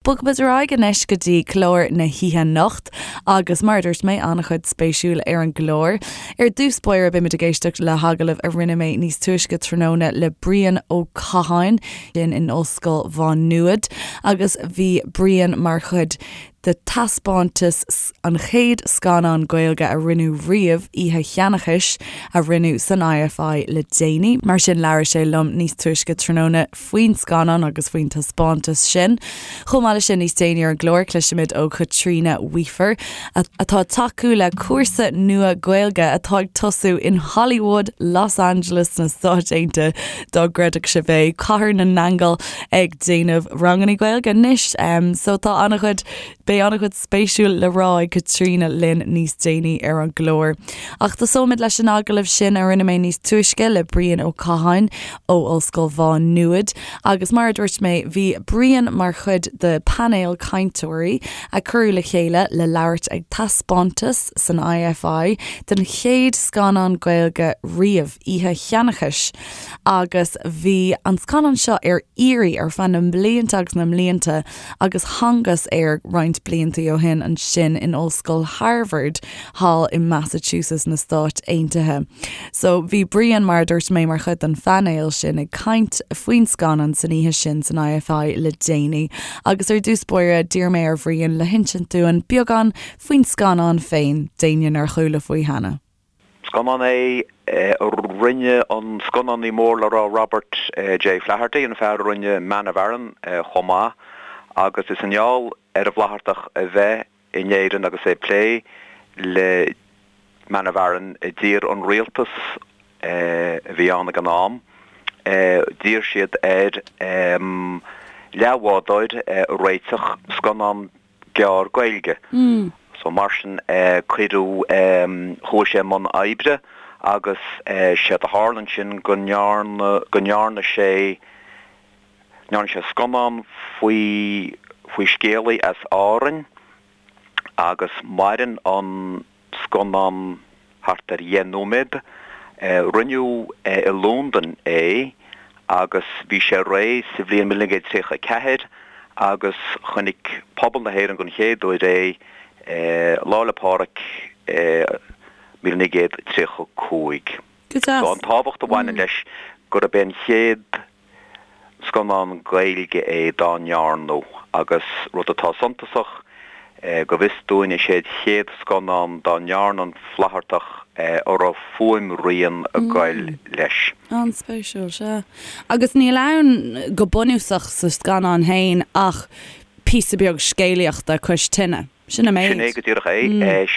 Bogfaimid ar aghaidh anois go dtí clár na hoíche anocht agus mar a dúirt mé, an-chuid spéisiúil ar an gclár. Ar dtús báire beimid ag éisteacht le hagallamh a rinne mé níos túisce tráthnóna le Brian Ó Catháin sin in Ollscoil Mhá Nuad agus bhí Brian mar chuid de taispeántas an chéad scannán Gaeilge a rinneadh riamh, Oíche Sheanchais, a rinneadh san IFI le déanaí. Mar sin labhair sé liom níos túisce tráthnóna faoin scannán agus faoin taispeántas sin. Chomh maith leis sin, níos déanaí ar an gclár, cloisfimid ó Chaitríona Weafer, atá ag tacú le cúrsa nua Gaeilge atá ag tosú in Hollywood, Los Angeles sna Stáit Aontaithe, dá gcreidfeadh sibh é, Cathair na nAingeal ag déanamh ranganna Gaeilge anois. So tá an-chuid Beidh an-chuid spéisiúil le rá ag Caitríona linn níos déanaí ar an gclár. Ach tosóimid leis an agallamh sin a rinne mé níos túisce le Brian Ó Catháin ó Ollscoil Mhá Nuad. Agus mar a dúirt mé, bhí Brian mar chuid de phainéal cainteoirí a cuireadh le chéile le labhairt ag taispeántas san IFI den chéad scannán Gaeilge riamh, Oíche Sheanchais. Agus bhí an scannán seo ar iarraidh ar feadh na mblianta agus na mblianta agus thángthas air roinnt blianta ó shin ansin in Ollscoil Harvard thall i Massachusetts na Stáit Aontaithe. So bhí Brian, mar a dúirt mé, mar chuid den phainéal sin ag caint faoin scannán san oíche sin san IFI le déanaí. Agus ar dtús báire, d'iarr mé ar Bhrian le hinsint dúinn beagán faoin scannán féin, d'éinne nár chuala faoi cheana. Scannán é a rinne an scannánaí mór le rá Robert J. Flaherty, an fear a rinne Man of Aran chomh maith, agus is i ngeall ar an bhFlaitheartach a bheith in Éirinn agus é ag plé le Man of Aran a d'iarr an rialtas a bhí ann ag an am, d'iarr siad air leathbhádóir a réiteach, scannán gearr Gaeilge. So mar sin cuireadh, chuaigh sé i mbun oibre agus séard a tharla ansin go ndearna, go ndearna sé, ndearna sé scannán faoi, faoi scéalaí as Árainn agus maireann an scannán thart ar dheich nóiméad. Rinneadh i Londain é agus bhí sé réidh sa bhliain 1934 agus chonaic pobal na hÉireann den chéad uair é Lá 'le Pádraig 1935. Go deas. So an tábhacht a bhaineann leis gurb é an chéad Scannán Gaeilge é dá ndearnadh agus rud atá suntasach, go bhfios dúinn, is é an chéad scannán dá ndearna an Flaitheartach a raibh fuaimrian ag goil leis. An-spéisiúil, sea. Agus níl ann go bunúsach sa scannán féin ach píosa beag scéalaíochta cois tine. Sin an méid. Sin é go díreach é.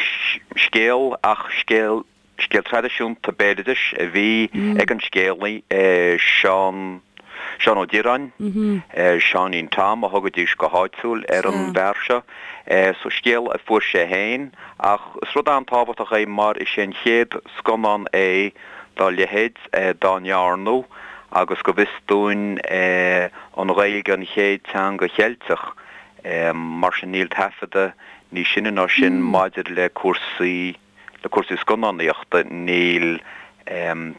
Scéal ach scéal Scéal traidisiúnta béaloidis a bhí ag an scéalaí, Seán, Seán Ó Direáin, Seáinín Tom a thugaidís go háitiúil ar an bhfear seo. So scéal a fuair sé féin ach is rud an-tábhachtach é mar is é an chéad scannán é dá leithéid dá ndearnadh agus go bhfios dúinn an Ghaeilge an chéad teanga Cheilteach mar sin níl taifeadadh níos sine ná sin maidir le cúrsaí Le cúrsaí scannánaíochta, níl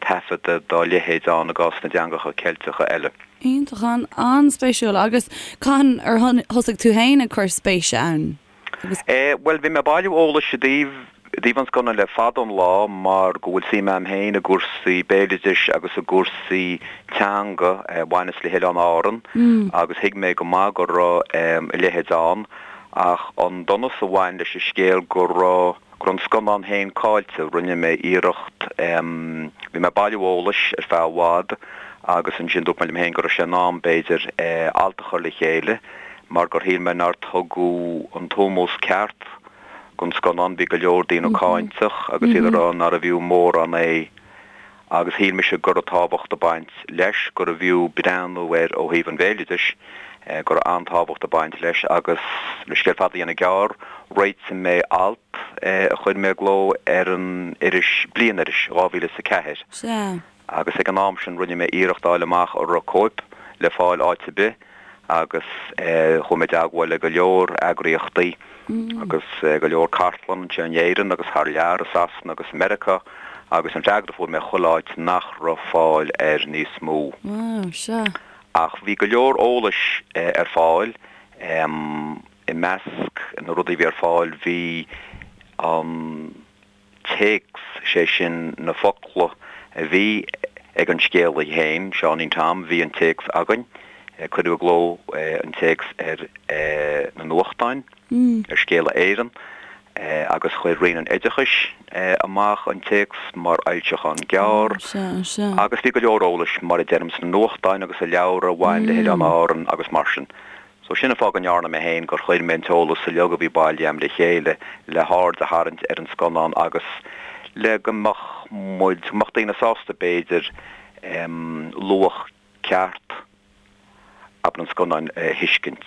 taifeadadh dá leithéid ann i gcás na dteangacha Ceilteacha eile. Iontach, an-spéisiúil. Agus cathain ar thosaigh tú féin ag cur spéise ann? Agus. Bhuel, bhí mé ag bailiú eolais i dtaobh i dtaobh an scannáin le fada an lá mar go bhfuil suim a'm féin i gcúrsaí béaloidis agus i gcúrsaí teanga a bhaineas le hOileáin Árann agus thuig mé go maith go raibh a leithéid ann ach an donas a bhain leis an scéal go raibh go raibh an scannán féin caillte. Rinne mé iarracht, bhí mé ag bailiú eolais ar feadh i bhfad agus ansin dúirt mé liom féin go raibh sé in am, b'fhéidir, alt a chur le chéile mar gur shíl mé nár tugadh an t-ómós ceart don scannán. Bhí go leor daoine cáinteach agus iad ag rá nárbh fhiú mórán é. agus shíl mise go raibh tábhacht ag baint leis, gurbh fhiú breathnú air ó thaobh an bhéaloidis, go raibh an-tábhacht ag baint leis agus, le scéal fada a dhéanamh gearr, réitigh mé alt a chuir mé i gcló ar an iris, Bliain-iris, 2004. Sea. Agus ag an am sin rinne mé iarracht a fháil amach an raibh cóip le fáil áit ar bith agus chuaigh mé i dteagmháil le go leor eagraíochtaí agus go leor cartlann anseo in Éirinn agus thar lear, i Sasana agus i Meiriceá agus an freagra a fuair mé chuile áit nach raibh fáil air níos mó. Wow, sea. Ach bhí go leor eolais ar fáil. I measc na rudaí a bhí ar fáil bhí an téacs, sé sin na focla a bhí ag an scéalaí féin, Seáinín Tom, bhí an téacs againn, cuireadh i gcló an téacs ar na nuachtáin, ar Scéala Éireann, agus chuir Roinn an Oideachais amach an téacs mar fhoilseachán gearr, agus bhí go leor eolais, mar a deirim, sna nuachtáin agus i leabhra a bhain le hOileáin Árann agus mar sin. So sin an fáth go ndearna mé féin, gur chuir mé an t-eolas uilig a bhí bailithe a'm le chéile le haird a tharraingt ar an scannán agus le go mbeadh muid, go mbeadh daoine sásta b'fhéidir luach ceart abair an scannáin a thuiscint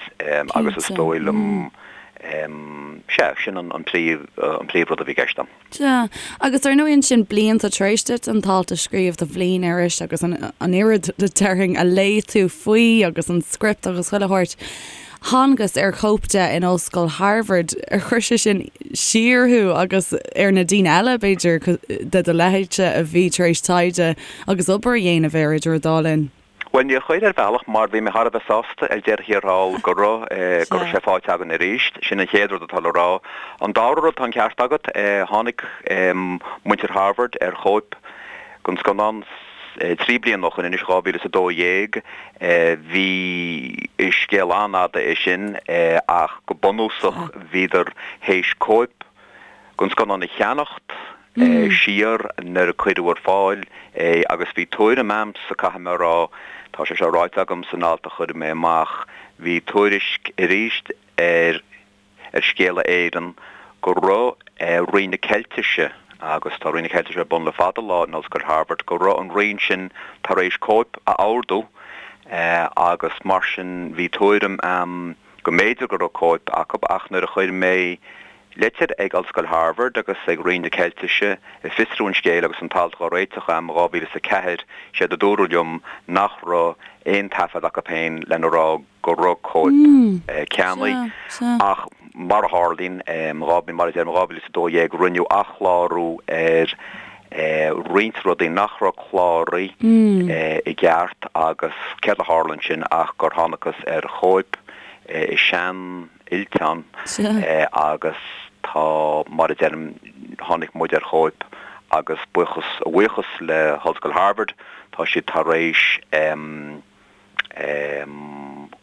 agus is dóigh liom, sea, sin an príomh, an príomhrud a bhí i gceist a'm. Sea, agus ar ndóigh ansin blianta tar éis duit an t-alt a scríobh do Bhliain-iris agus an oiread déarfainn a léigh tú faoi agus an script agus chuile shórt, thángthas ar chóip de in Ollscoil Harvard. Ar chuir sé sin siar thú agus ar na daoine eile, b'fhéidir, de do leithéidse a bhí tar éis taighde agus obair a dhéanamh air idir an dá linn? Bhuel, níor chuir, ar bhealach, mar bhí mé thar a bheith sásta ar deireadh thiar thall go raibh, go raibh sé faighte againn arís. Sin an chéad rud atá le rá. An dara rud, tá an ceart agat, tháinig muintir Harvard ar chóip den scannán 3 bliana ó shoin anois, 2012. Bhí, is scéal an-fhada é sin, ach go bunúsach bhíodar théis cóip den scannán a cheannacht, siar nuair a cuireadh ar fáil é agus bhí tuairim a'msa, caithfidh mé a rá, tá sé seo ráite agam san alt a chuir mé amach, bhí tuairisc arís ar ar Scéala Éireann go raibh Roinn na Ceiltise, agus tá Roinn na Ceiltise ar bun le fada lá in Ollscoil Harvard, go raibh an roinn sin tar éis cóip a ordú agus mar sin bhí tuairim a'm go mb'fhéidir go raibh cóip acu ach nuair a chuir mé Litir ag Ollscoil Harvard agus ag Roinn na Ceiltise ag fiosrú an scéil agus an t-alt dhá réiteach a'm i 2004, séard a dúradh liom nach raibh aon taifead acu féin lena rá go raibh cóip ceannaithe. Ach mar a tharlaíonn, mar a deirim, i 2012 rinneadh athchlárú ar roinnt rudaí nach raibh cláraithe i gceart agus céard a tharla ansin ach gur thángthas ar chóip i sean fhillteán agus tá, mar a deirim, tháinig muid ar chóip agus buíochas, a bhuíochas le hOllscoil Harvard, tá siad tar éis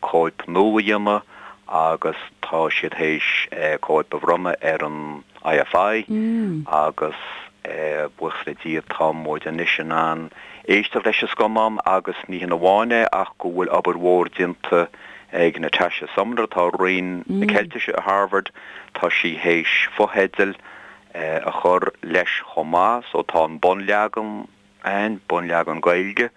cóip nua a dhéanamh agus tá siad théis cóip a bhronnadh ar an IFI agus buíochas le Dia tá muid anois in ann éisteacht leis an scannán agus ní hin amháin é ach go bhfuil obair mhór déanta ag Natasha Sumner atá i Roinn na Ceiltise i Harvard, tá sí théis fotheidil a chur leis chomh maith, so tá an bunleagan ann, bunleagan Gaeilge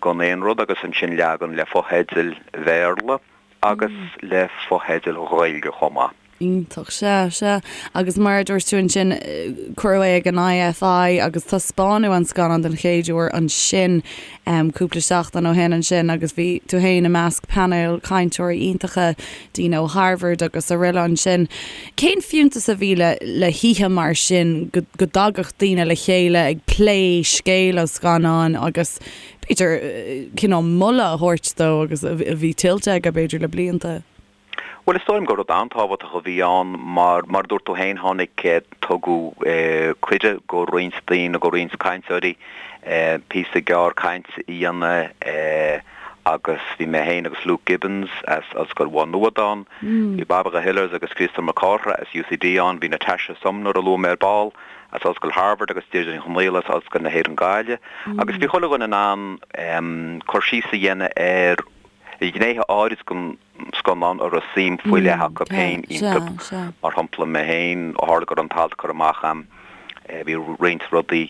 gan aon rud agus ansin leagan le fotheidil Bhéarla agus le fotheidil Ghaeilge chomh maith. Iontach, sea, sea. Agus mar a dúirt tú ansin, cuireadh é ag an IFI agus taispeánadh an scannán den chéad uair ansin cúpla seachtain ó shin ansin agus bhí tú féin i measc painéal cainteoirí iontacha, daoine ó Harvard agus araile ansin. Cén fiúntas a bhí le le hoíche mar sin, go go dtagadh daoine le chéile ag plé scéal an scannáin agus b'fhéidir cineál moladh a thabhairt dó agus a bhí tuillte aige b'fhéidir le blianta? Bhuel, is dóigh liom gur rud an-tábhachtach a bhí ann mar, mar a dúirt tú féin, tháinig, tugadh cuireadh go roinnt daoine, go roinnt cainteoirí píosa gearr cainte a dhéanamh agus bhí mé féin agus Luke Gibbons as Ollscoil Mhá Nuad ann, bhí Bairbre Hillers agus Críostóir Mac Cárthaigh as UCD ann, bhí Natasha Sumner a luaigh mé ar ball as Ollscoil Harvard agus Deirdre Ní Chonaola as Ollscoil na hÉireann Gaillimh agus bhí chuile dhuine in ann cur síos a dhéanamh ar ghnéithe áirid den scannán a raibh suim faoi leith acu féin iontu. Mar shampla, mé féin, ó tharla go raibh an t-alt curtha amach a'm, bhí roinnt rudaí,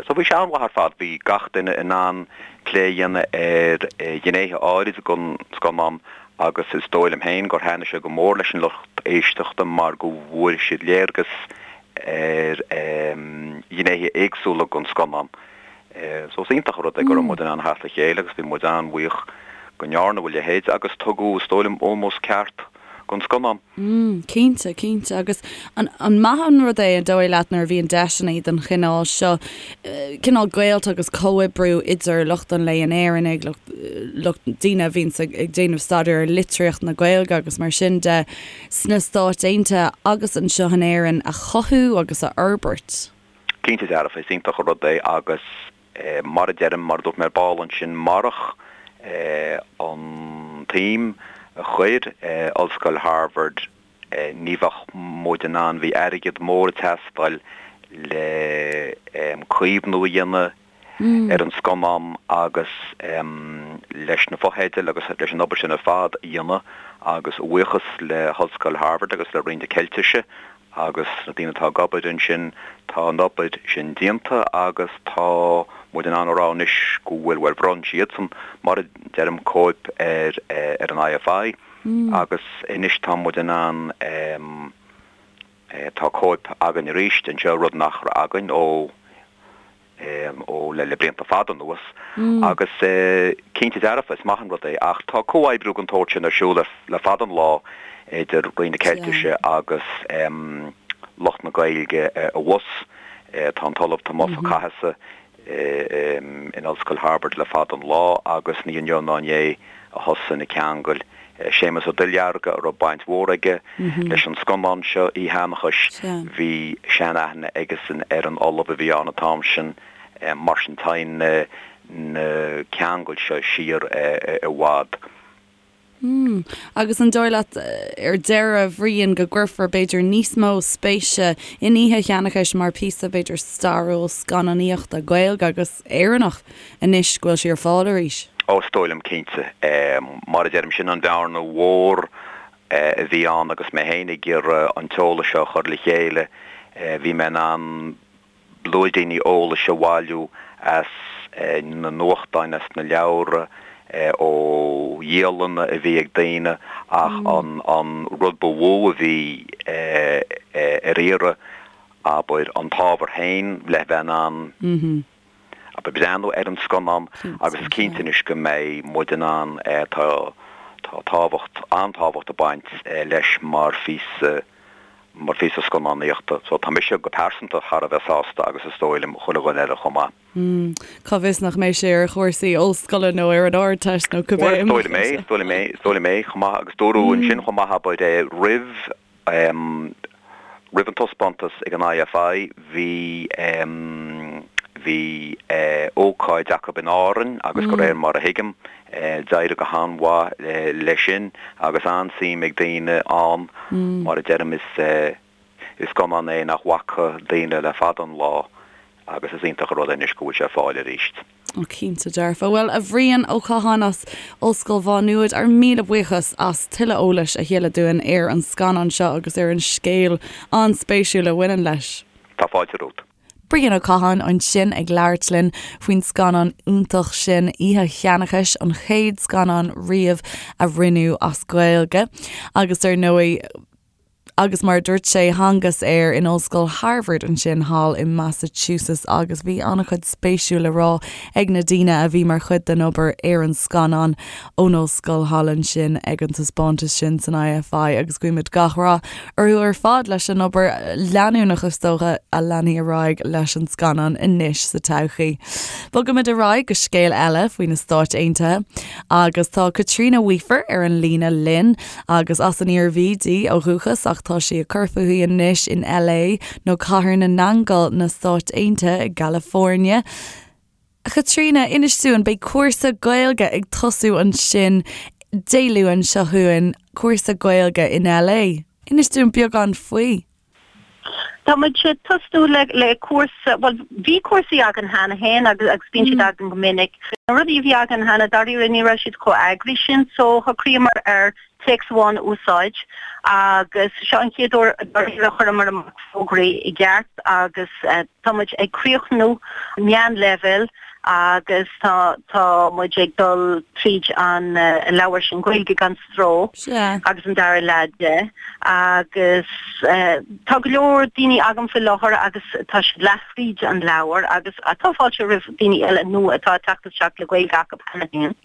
so bhí sé an-mhaith ar fad, bhí gach duine in ann plé a dhéanamh ar ghnéithe áirid den scannán agus is dóigh liom féin gur thaitnigh sé go mór leis an lucht éisteachta mar go bhfuair siad léargas ar ghnéithe éagsúla den scannán. So is iontach an rud é go raibh muid in ann theacht le chéile agus bhí muid an-bhuíoch go ndearnadh a leithéid agus tugadh, is dóigh liom, ómós ceart gon scannán. Mm, cinnte, cinnte. Agus an, an maith an rud é, an dóigh leat, nuair a bhíonn deiseanna den chineál seo, cineál gaolta agus comhoibriú idir lucht an léinn Éireannaigh, lucht, lucht, daoine a bhíonns ag, ag déanamh staidéar ar litríocht na Gaeilge agus mar sin de, sna Stáit Aontaithe agus anseo in Éirinn a chothú agus a fhorbairt? Cinnte dearfa, is iontach an rud é agus mar a deirim, mar a dúirt mé ar ball ansin, marach an tsuim a chuir Ollscoil Harvard ní bheadh muid in ann, bhí airgead mór ag teastáil le caomhnú a dhéanamh ar an scannán agus leis na fotheidil agus leis an obair sin ar fad a dhéanamh agus a bhuíochas le hOllscoil Harvard agus le Roinn na Ceiltise agus na daoine atá ag obair ansin, tá an obair sin déanta agus tá muid in ann a rá anois go bhfuil, bhuel, bhronn siadsan, mar a deirim, cóip ar ar an IFI agus anois tá muid in ann, tá cóip againn arís anseo, rud nach raibh againn ó. ó le blianta fada anuas agus cinnte dearfa is maith an rud é ach tá comhoibriú den tsórt sin ar siúl le fada an lá idir Roinn na Ceiltise agus lucht na Gaeilge abhus. Tá an tOllamh Tomás Ó Cathasaigh in Ollscoil Harvard le fada an lá agus ní inniu ná inné a thosaigh na ceangail. Séamus Ó Duilearga, a raibh baint mhór aige leis an scannán seo, Oíche Sheanchais, bhí sean-aithne aigesan ar an ollamh a bhí ann an t-am sin, mar sin téann na ceangail seo siar i bhfad. Mm. Agus an dóigh leat, ar deireadh, a Bhriain, go gcuirfear, b'fhéidir, níos mó spéise in Oíche Sheanchais mar phíosa, b'fhéidir, stairiúil scannánaíochta Gaeilge agus Éireannach anois go bhfuil sí ar fáil arís? Ó, is dóigh liom, cinnte. Mar a deirim, sin an bhearna mhór a bhí ann agus mé féin ag iarraidh an t-eolas seo a chur le chéile. Bhí mé in ann blúiríní eolais a bhailiú as na nuachtáin, as na leabhra, ó dhialanna a bhí ag daoine ach an rud ba mhó a bhí ar iarraidh, abair, an t-ábhar féin le bheith in ann abair, breathnú ar an scannán agus is cinnte anois go mbeidh muid in ann, tá tá tábhacht, an-tábhacht ag baint leis mar phíosa, mar phíosa scannánaíochta. So tá mise go pearsanta thar a bheith sásta agus is dóigh liom chuile dhuine eile chomh maith. Cá bhfios nach mbeidh sé ar chúrsaí ollscoile nó ar an Ardteist nó cibé. Bhuel, is dóigh liom é, is dóigh liom é, is dóigh liom é chomh maith agus dúradh ansin chomh maith, abair, roimh Roimh an taispeántas ag an IFI bhí bhí ócáid acu in Árainn agus de réir mar a thuigim d'éirigh go han-mhaith leis sin agus an-suim ag daoine ann. Mar a deirim is is scannán é nach bhfaca daoine le fada an lá agus is iontach an rud é anois go bhfuil sé ar fáil arís. Ó cinnte dearfa. Bhuel, a Bhriain Ó Catháin as Ollscoil Mhá Nuad, ár míle buíochas as tuilleadh eolais a thuilleadh dúinn ar an scannán seo agus ar an scéal an-spéisiúil a bhaineann leis. Tá fáilte romhat. Brian Ó Catháin ansin ag labhairt linn faoin scannán iontach sin, Oíche Sheanchais, an chéad scannán riamh a rinneadh as Gaeilge. Agus ar ndóigh, Agus mar a dúirt sé, thángthas air in Ollscoil Harvard ansin thall i Massachusetts agus bhí an-chuid spéisiúil le rá ag na daoine a bhí mar chuid den obair ar an scannán ón ollscoil thall ansin ag an taispeántas sin san IFI agus guímid gach rath orthu ar fad leis an obair leanúnach is dócha a leanfaidh ar aghaidh leis an scannán anois sa todhchaí. Bogaimid ar aghaidh go scéal eile faoi na Stáit Aontaithe agus tá Caitríona Weafer ar an líne linn. Agus as an Iarmhí di ó dhúchas ach tá sí ag cur fúithi anois in LA nó Cathair na nAingeal na Stáit Aontaithe i gCalifornia. A Chaitríona, inis dúinn, beidh cúrsa Gaeilge ag tosú ansin Dé Luain seo chugainn, cúrsa Gaeilge in LA. Inis dúinn beagán faoi. Tá muid ag tosnú le le cúrsa, bhuel bhí cúrsaí againn cheana féin agus agus bíonn siad againn go minic. Na rudaí a bhí againn cheana dáiríre ní raibh siad chomh eagraithe sin so shocraíomar ar téacs amháin a úsáid agus seo an chéad uair dáiríre a chuireamar amach fógraí i gceart agus tá muid ag críochnú meánleibhéal agus tá tá muid ag dul tríd an leabhar sin Gaeilge gan Stró agus an dara leath de agus tá go leor daoine agam faoi láthair agus tá siad leath thríd an leabhar agus tá fáilte roimh daoine eile nua atá ag teacht isteach le Gaeilge acu cheana féin.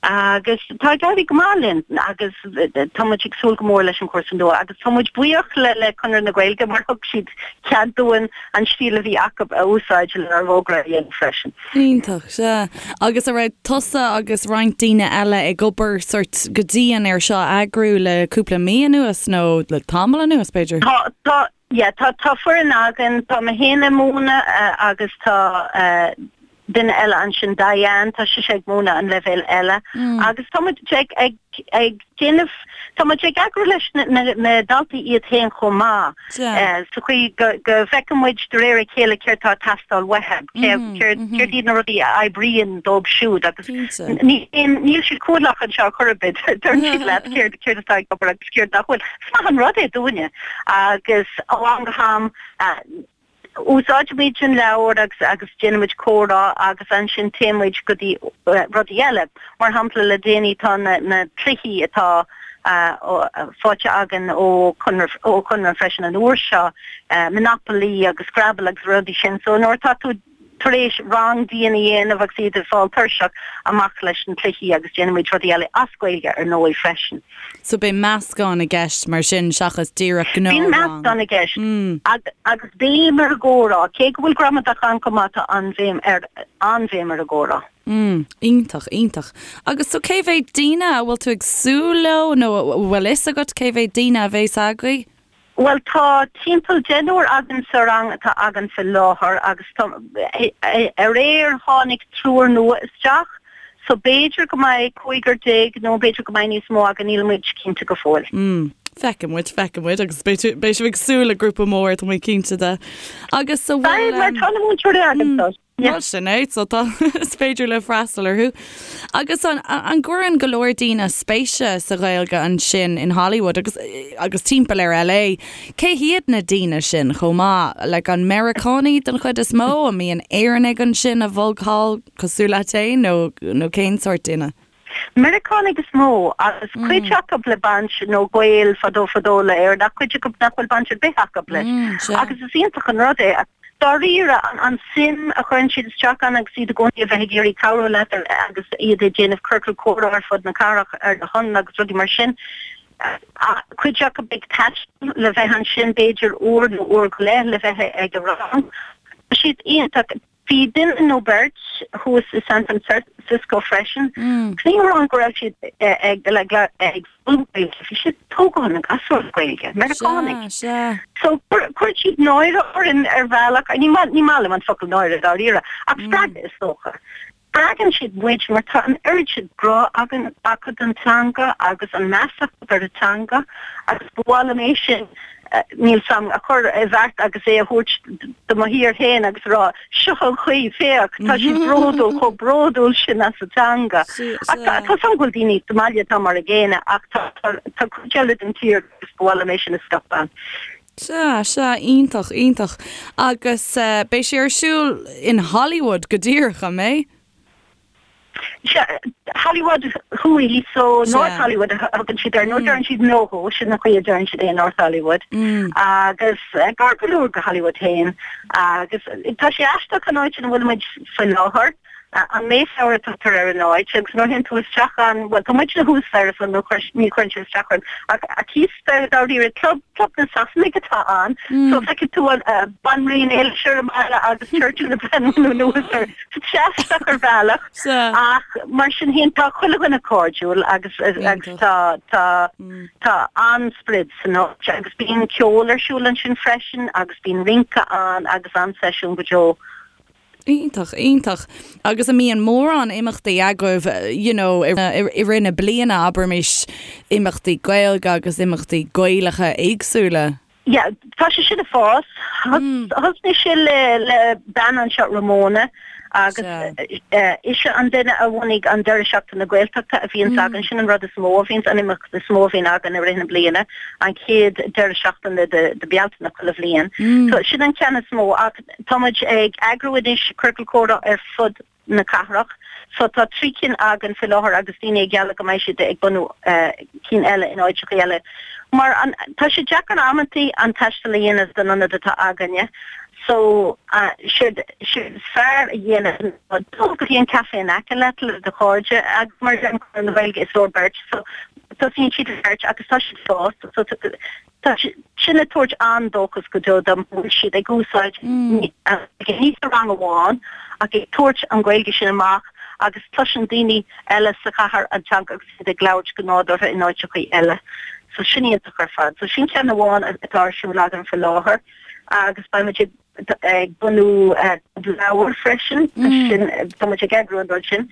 Agus tá ag éirí go maith linn agus tá muid ag súil go mór leis an chúrsa nua agus tá muid buíoch le le Conradh na Gaeilge mar thug siad cead dúinn an stíl a bhí acu a úsáid lenár bhfógra a dhéanamh freisin. Iontach, sea. Agus an raibh tusa agus roinnt daoine eile ag obair sort go dian ar seo a eagrú le cúpla mí anuas nó le tamall anuas b'fhéidir? Tá, tá, yeah, tá, tá foireann againn, tá mé féin ag múineadh agus tá duine eile ansin, Diane, tá sise ag múineadh an leibhéal eile agus tá muid ag, ag, ag déanamh, tá muid ag eagrú leis na, na, na daltaí iad féin chomh maith sa chaoi go, go bhfeiceann muid de réir a chéile céard tá ag teastáil uathu, céard, céard, céard iad na rudaí a oibríonn dóibh siúd agus ní, níl siad cúthalach anseo chor ar bith, deireann siad leat céard, céard atá ag obair agus céard nach bhfuil. Is maith an rud é dúinne agus ó am go ham, Úsáidimid an leabhar agus agus déanaimid comhrá agus ansin téimid go dtí rudaí eile. Mar shampla le déanaí tá na na cluichí atá faighte againn ó Conradh ó Chonradh freisin an uair seo, Monopoly agus Scrabble agus rudaí sin. So nuair atá tú tar éis rang dian a dhéanamh agus iad ag fáil tuirseach, amach leis na cluichí agus déanaimid rudaí eile as Gaeilge ar ndóigh freisin. So beidh meascán i gceist mar sin seachas díreach Bíonn gnáthrang. meascán i gceist agus béim ar an gcomhrá, cé go bhfuil gramadach ann chomh maith tá an-bhéim ar an-bhéim ar an gcomhrá. Mm, iontach, iontach. Agus so cé mhéad daoine a bhfuil tú ag súil leo nó a bhfuil fhios agat cé mhéad daoine a bheas agaibh? Bhuel, tá timpeall deichniúr againn sa rang atá againn faoi láthair agus tá, aréir tháinig triúr nua isteach so b'fhéidir go mbeidh cúigear déag nó b'fhéidir go mbeidh níos mó againn, níl muid cinnte go fóill. Mm, feicfidh muid, feicfidh muid agus beidh beidh sibh ag súil le grúpa mór, tá mé cinnte de. Agus so bhfuil. Beidh, mar tá na múinteoirí againn so. Bhuel sin é, so tá, is féidir libh freastal orthu. Agus an, an gcuireann go leor daoine spéise sa Ghaeilge ansin in Hollywood agus, agus timpeall ar LA? Cé hiad na daoine sin chomh maith? Like an Meiriceánaigh den chuid is mó? An mbíonn Éireannaigh ansin a bhog thall cosúil leat féin nó, nó cén sórt duine? Meiriceánaigh is mó, agus cuid acu le baint nó gaol fadó fadó le Éirinn, ach cuid acu nach bhfuil baint ar bith acu leis. Agus is iontach an rud é, dáiríre, an suim a chuireann siad isteach ann agus iad i gcónaí a bheith ag iarraidh cabhrú leat agus iad ag déanamh ciorcal comhrá ar fud na cathrach ar do shon agus rudaí mar sin. Cuid acu ag taisteal le bheith ansin b'fhéidir uair nó uair go leith le bheith ag an rang. Tá siad iontach. Bhí duine nó beirt thuas i San Francisco freisin. Ní hamháin go raibh siad ag ag foghlaim Gaeilge, bhí siad ag tógáil na gasúr le Gaeilge, Meiriceánaigh. So chuir siad náire orainn ar bhealach, ní maith liom an focal náire dáiríre, ach spreagadh is dócha. Spreagann siad muid mar tá an oiread sin grá againn acu don teanga agus an meas acu ar an teanga agus ba mhaith liom é sin, níl 's a'm, a chur i bhfeacht agus é a thabhairt do mo thír féin agus a rá seo an chaoi, féach, tá siad bródúil, chomh bródúil sin as a dteanga. Ach tá 's a'm go bhfuil daoine sa mbaile atá mar a gcéanna ach tá cuid eile den tír agus ba mhaith liom é sin a scaipeadh. Sea, sea, iontach, iontach. Agus beidh sé ar siúl in Hollywood go díreach, an mbeidh? Sea, Hollywood Thuaidh, so North Hollywood a thugann siad air, nó deireann siad NoHo, sin an chaoi a deireann siad é, North Hollywood. Agus gar go leor go Hollywood féin. Agus tá sé aisteach an áit ina bhfuil muid faoi láthair. An Mayflower a tugtar ar an áit agus nuair a théann tú isteach ann, bhuel tá muidne thuas staighre so ní chuireann sé isteach orainn, ach thíos staighre dáiríre, club, club na Sasanaigh atá ann, so feicfidh tú an Banríon Éilis ar an mballa agus Churchill ag breathnú anuas air. So tá sé aisteach ar bhealach ach mar sin féin tá chuile dhuine cairdiúil agus agus tá tá tá an-sprid san áit agus bíonn ceol ar siúl ansin freisin agus bíonn rince ann agus an-seisiún go deo. Iontach, iontach. Agus an mbíonn mórán imeachtaí agaibh, you know, i rith na bliana, abraimis, imeachtaí Gaeilge agus imeachtaí Gaelacha éagsúla? Yeah, tá sé sin ag fás. Thosnaigh sé le le bean anseo, Ramona, agus ise an duine a bhunaigh an deireadh seachtaine Gaeltachta a bhíonns againn. Sin an rud is mó a bhíonns, an imeacht is mó a bhíonn againn i rith na bliana, an chéad deireadh seachtaine de de Bealtaine chuile bhliain. So sin an ceann is mó ach Tá muid ag eagrú anois ciorcal comhrá ar fud na cathrach. So tá 3 cinn againn faoi láthair agus daoine ag gealladh go mbeidh siad ag bunú cinn eile in áiteachaí eile. Mar an, tá sé deacair amantaí an taisteal a dhéanamh don ionad atá againne. So, séard is fearr a dhéanamh ná dul go dtí an café in aice leat le do chairde agus mar a deirim Conradh na Gaeilge is leor beirt so tosaíonn siad le beirt agus tá siad ag fás so tá sin ag tabhairt an-dóchas go deo dom go bhfuil siad ag úsáid ní sa rang amháin ach ag tabhairt an Ghaeilge sin amach agus cloiseann daoine eile sa chathair an teanga agus iad ag labhairt go nádúrtha in áiteachaí eile. So sin iontach ar fad. So sin ceann amháin atá ar siúl againn faoi láthair. agus beidh muid ag bunú leabhar freisin, sin, tá muid ag eagrú an rud sin.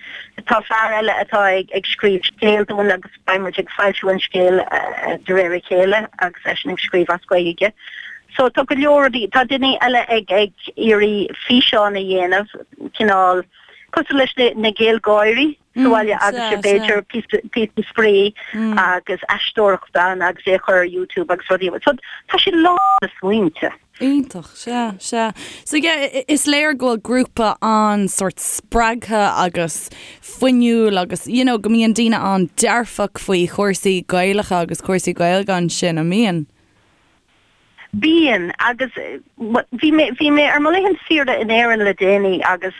Tá fear eile atá ag scríobh scéal dúinn agus beidh muid ag foilsiú an scéil de réir a chéile agus eisean ag scríobh as Gaeilge. So tá go leor rudaí, tá duine eile ag ag iarraidh físeán a dhéanamh, cineál cosúil leis na GaelGáirí. sa bhaile agus sé b'fhéidir píosa spraoi agus aisteoireacht ann agus é a chur ar YouTube agus rudaí. So tá sé lán de smaointe. Iontach, sea, sea. So yeah, is léir go bhfuil grúpa an-sórt spreagtha agus fuinniúil agus you know go mbíonn daoine an-dearfach faoi chúrsaí Gaelacha agus cúrsaí Gaeilge ansin, an mbíonn? Bíonn, agus bhí mé, bhí mé ar mo laethanta saoire in Éirinn le déanaí agus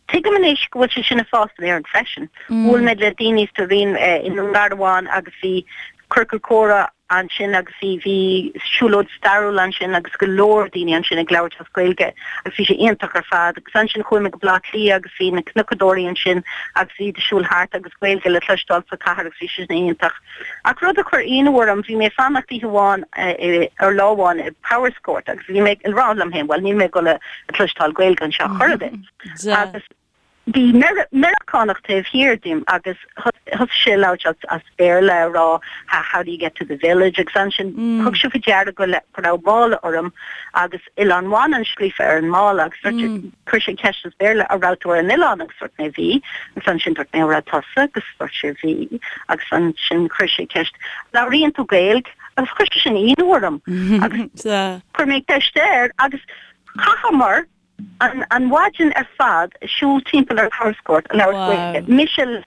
Tuigim anois go bhfuil sé sin ag fás in Éirinn freisin. Bhuail mé le daoine sa Rinn i nDún Garbhán agus bhí ciorcal comhrá ansin agus bhí bhí siúlóid stairiúil ansin agus go leor daoine ansin ag labhairt as Gaeilge agus bhí sé iontach ar fad. Agus ansin chuaigh mé go Baile Átha Cliath agus bhí na cnocadóirí ansin agus iad ag siúl thart agus Gaeilge le cloisteáil sa chathair agus bhí sé sin iontach. Ach rud a chuir ionadh orm, bhí mé ag fanacht oíche amháin, ar lá amháin i Powerscourt agus bhí mé ag rá liom féin, bhuel níl mé ag dul a cloisteáil Gaeilge anseo chor ar bith. Agus bhí Meiriceánach taobh thiar díom agus thosaigh sé ag labhairt as Béarla ag rá how do you get to the village agus ansin thug sé faoi deara go raibh mála orm agus Oileán Mhanann scríofa ar an mála agus chuir sé ceist as Béarla an raibh tú ar an oileán agus dúirt mé bhí agus ansin dúirt mé an raibh tusa agus dúirt sé bhí agus ansin chuir sé ceist labhraíonn tú Gaeilge agus chuir sé sin ionadh orm agus chuir mé ceist air agus chaitheamar an an mhaidin ar fad ag siúl timpeall ar Powerscourt ag labhairt Gaeilge. Mise le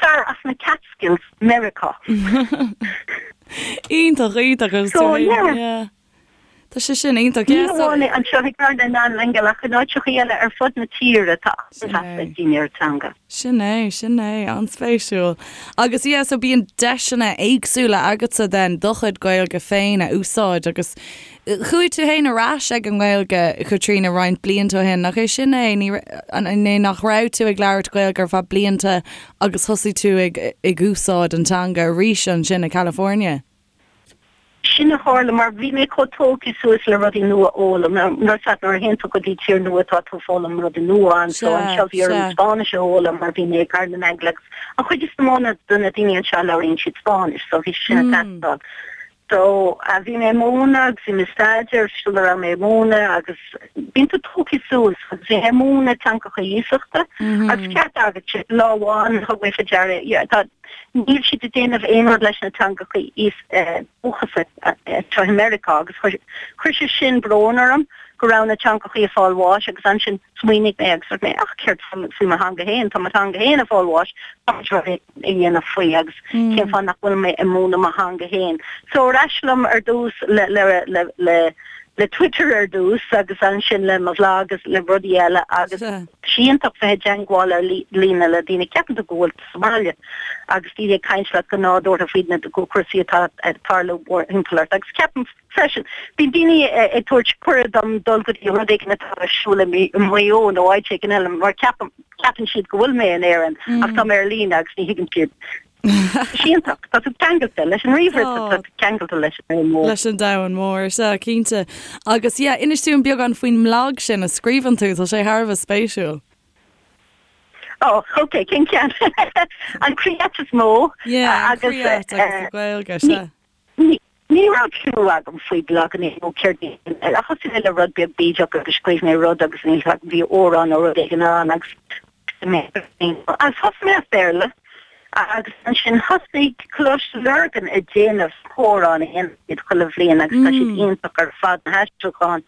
fear as na Catskills, Meiriceá. Iontach, iontach agus So, yeah. yeah. Tá sé sin iontach. Ní hamháin é anseo i gCarna nan Aingeal ach in áiteachaí eile ar fud na tíre tá an-mheas ag daoine ar an teanga. Sin é, sin é, an-spéisiúil. Agus yeah, so bíonn deiseanna éagsúla agatsa then do chuid Gaeilge féin a úsáid agus Chuaigh tú féin ar ais ag an nGaeilge, Caitríona, roinnt blianta ó shin, nach é sin é? Ní, an é nach raibh tú ag labhairt Gaeilge ar feadh blianta agus thosaigh tú ag, ag úsáid an teanga arís ansin i California? Sin a tharla mar bhí mé chomh tógtha suas le rudaí nua a fhoghlaim. Nuair a nuair a théann tú go dtí tír nua tá tú ag foghlaim rudaí nua anso. Anseo bhí orm Spáinnis a fhoghlaim mar bhí mé i gCathair na nAingeal agus an chuid is mó de na daoine anseo labhraíonn siad Spáinnis so bhí sin ag teastáil. So, bhí mé ag múineadh agus bhí mé ag staidéar sula raibh mé ag múineadh agus bíonn tú tógtha suas agus bhí mé ag múineadh teangacha iasachta agus ceart agat lá amháin thug mé faoi deara yeah tá níl siad ag déanamh aon rud leis na teangacha dúchasacha anseo i Meiriceá agus chuir chuir sé sin brón orm go raibh na teangacha ag fáil bháis agus ansin smaoinigh mé agus dúirt mé ach céard faoi mo theanga féin tá mo theanga féin ag fáil bháis tá rud a dhéanamh faoi agus cén fáth nach bhfuil mé ag múineadh mo theanga féin. So ar ais liom ar dtús le le le le le Twitter ar dtús agus ansin le mo bhlag agus le rudaí eile agus tá sé iontach bheith i dteangmháil ar líne le daoine. Ceapann tú go bhfuil tú sa mbaile agus daoine ag caint leat go nádúrtha faoi na cúrsaí atá ag tarlú mórthimpeall ort agus ceapaim freisin. Bíonn daoine ag tabhairt cuireadh dom dul go dtí rud éigin atá ar siúl i Maigh Eo nó áit éigin eile mar ceapaim, ceapann siad go bhfuil mé in Éirinn ach tá mé ar líne agus ní thuigeann siad. Tá sé iontach. Tá tú ceangailte leis an ríomhaire, tá tú ceangailte leis an domhan mór. Leis an domhan mór, sea, cinnte. Agus yeah, inis dúinn beagán faoin mblag sin a scríobhann tú, tá sé thar a bheith spéisiúil. Oh, ok, cén ceann? An Creat is mó. Yeah, an Creat agus an Ghaeilge, sea. Ní raibh clue agam faoi blaganna nó céard iad. Thosaigh mé le rud beag bídeach agus scríobh mé rud agus níl 'fhios agam bhí amhrán nó rud éigin ann agus agus thosaigh mé as Béarla agus ansin thosaigh Coláiste Lurgan ag déanamh amhrán a dhéanann siad chuile bhliain agus tá siad iontach ar fad na haistriúcháin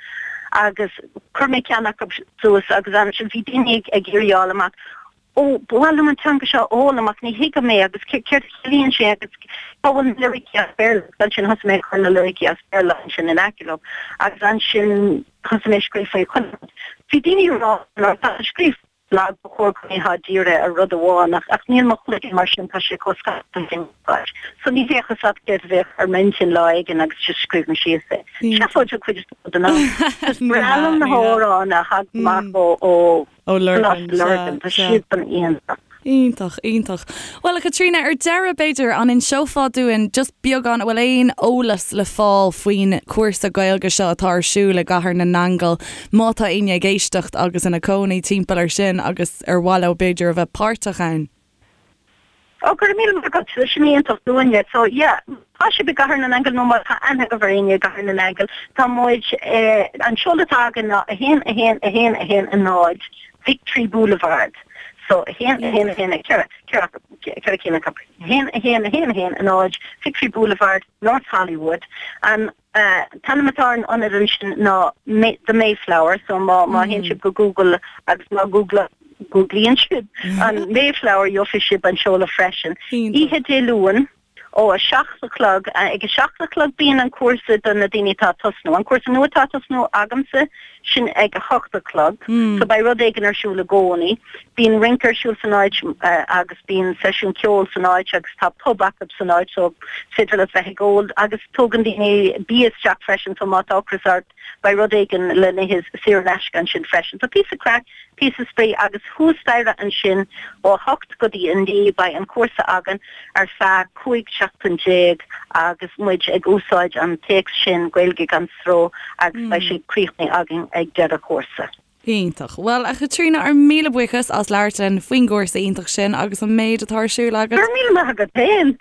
agus chuir mé ceann acu suas agus ansin bhí daoine ag iarraidh a fháil amach. Ó, ba mhaith liom an teanga seo a fhoghlaim ach ní thuigim é agus céard a chiallaíonn sé agus cá bhfuil na liricí as Béarla agus ansin thosaigh mé ag cur na liricí as Béarla ansin in aice leo agus ansin thosaigh mé ag scríobh faoi chuile rud. Bhí daoine ag rá má tá tú ag scríobh blag ba chóir go mbeifeá dírithe ar rud amháin ach ach níl mo chloigeann mar sin tá sé chomh scaipthe sin. So ní bheadh fhios agat céard a bheadh ar m'intinn lá éigin agus just scríobh mé síos é. Seafóid an chuid is mó den am. Is breá liom na hamhráin a thagann amach ó ó Ó Lurgan, Coláiste Lurgan, tá siadsan iontach. Iontach, iontach. Bhuel, a Chaitríona, ar deireadh, b'fhéidir, an inseofá dúinn just beagán, an bhfuil aon eolas le fáil faoin chúrsa Gaeilge seo atá ar siúl i gCathair na nAingeal, má tá éinne ag éisteacht agus ina cónaí timpeall air sin agus ar mhaith leo, b'fhéidir, a bheith páirteach ann? Ó, go raibh míle maith agat, sin iontach dúinne. So, yeah, tá sibh i gCathair na nAingeal nó má tá aithne agaibh ar éinne i gCathair na nAingeal, tá muid, eh, an seoladh atá againn ná 1 1 1 1 0 Victory Boulevard. So, 1 1 1 4, 4, 4 cinn acu. 1 1 1 1 0 Victory Boulevard, North Hollywood. An t-ainm atá ar an ionad ansin ná The Mayflower, so má má théann sibh go Google agus má Google Googlaíonn sibh an Mayflower gheobhaidh sibh an seoladh freisin. Oíche Dé Luain ó 7 a chlog, ag 7 a chlog bíonn an cúrsa do na daoine atá ag tosnú. An cúrsa nua atá ag tosnú agamsa, sin ag 8 a chlog, so beidh rud éigin ar siúl i gcónaí. Bíonn rince ar siúl san áit agus bíonn seisiún ceoil san áit agus tá pub acu san áit so is féidir leat bheith ag ól agus tógann daoine bia isteach freisin so má tá ocras ort beidh rud éigin le n-ithe saor in aisce ansin freisin. So píosa craic, píosa spraoi agus thuas staighre ansin ó 8 go dtí 9 beidh an cúrsa againn ar feadh 15 seachtain agus muid ag úsáid an téacs sin Gaeilge gan Stró agus beidh sé críochnaithe againn ag deireadh an chúrsa. Iontach. Bhuel, a Chaitríona, ár míle buíochas as labhairt linn faoin gcúrsa iontach sin agus an méid atá ar siúl agat. Go raibh míle maith agat féin!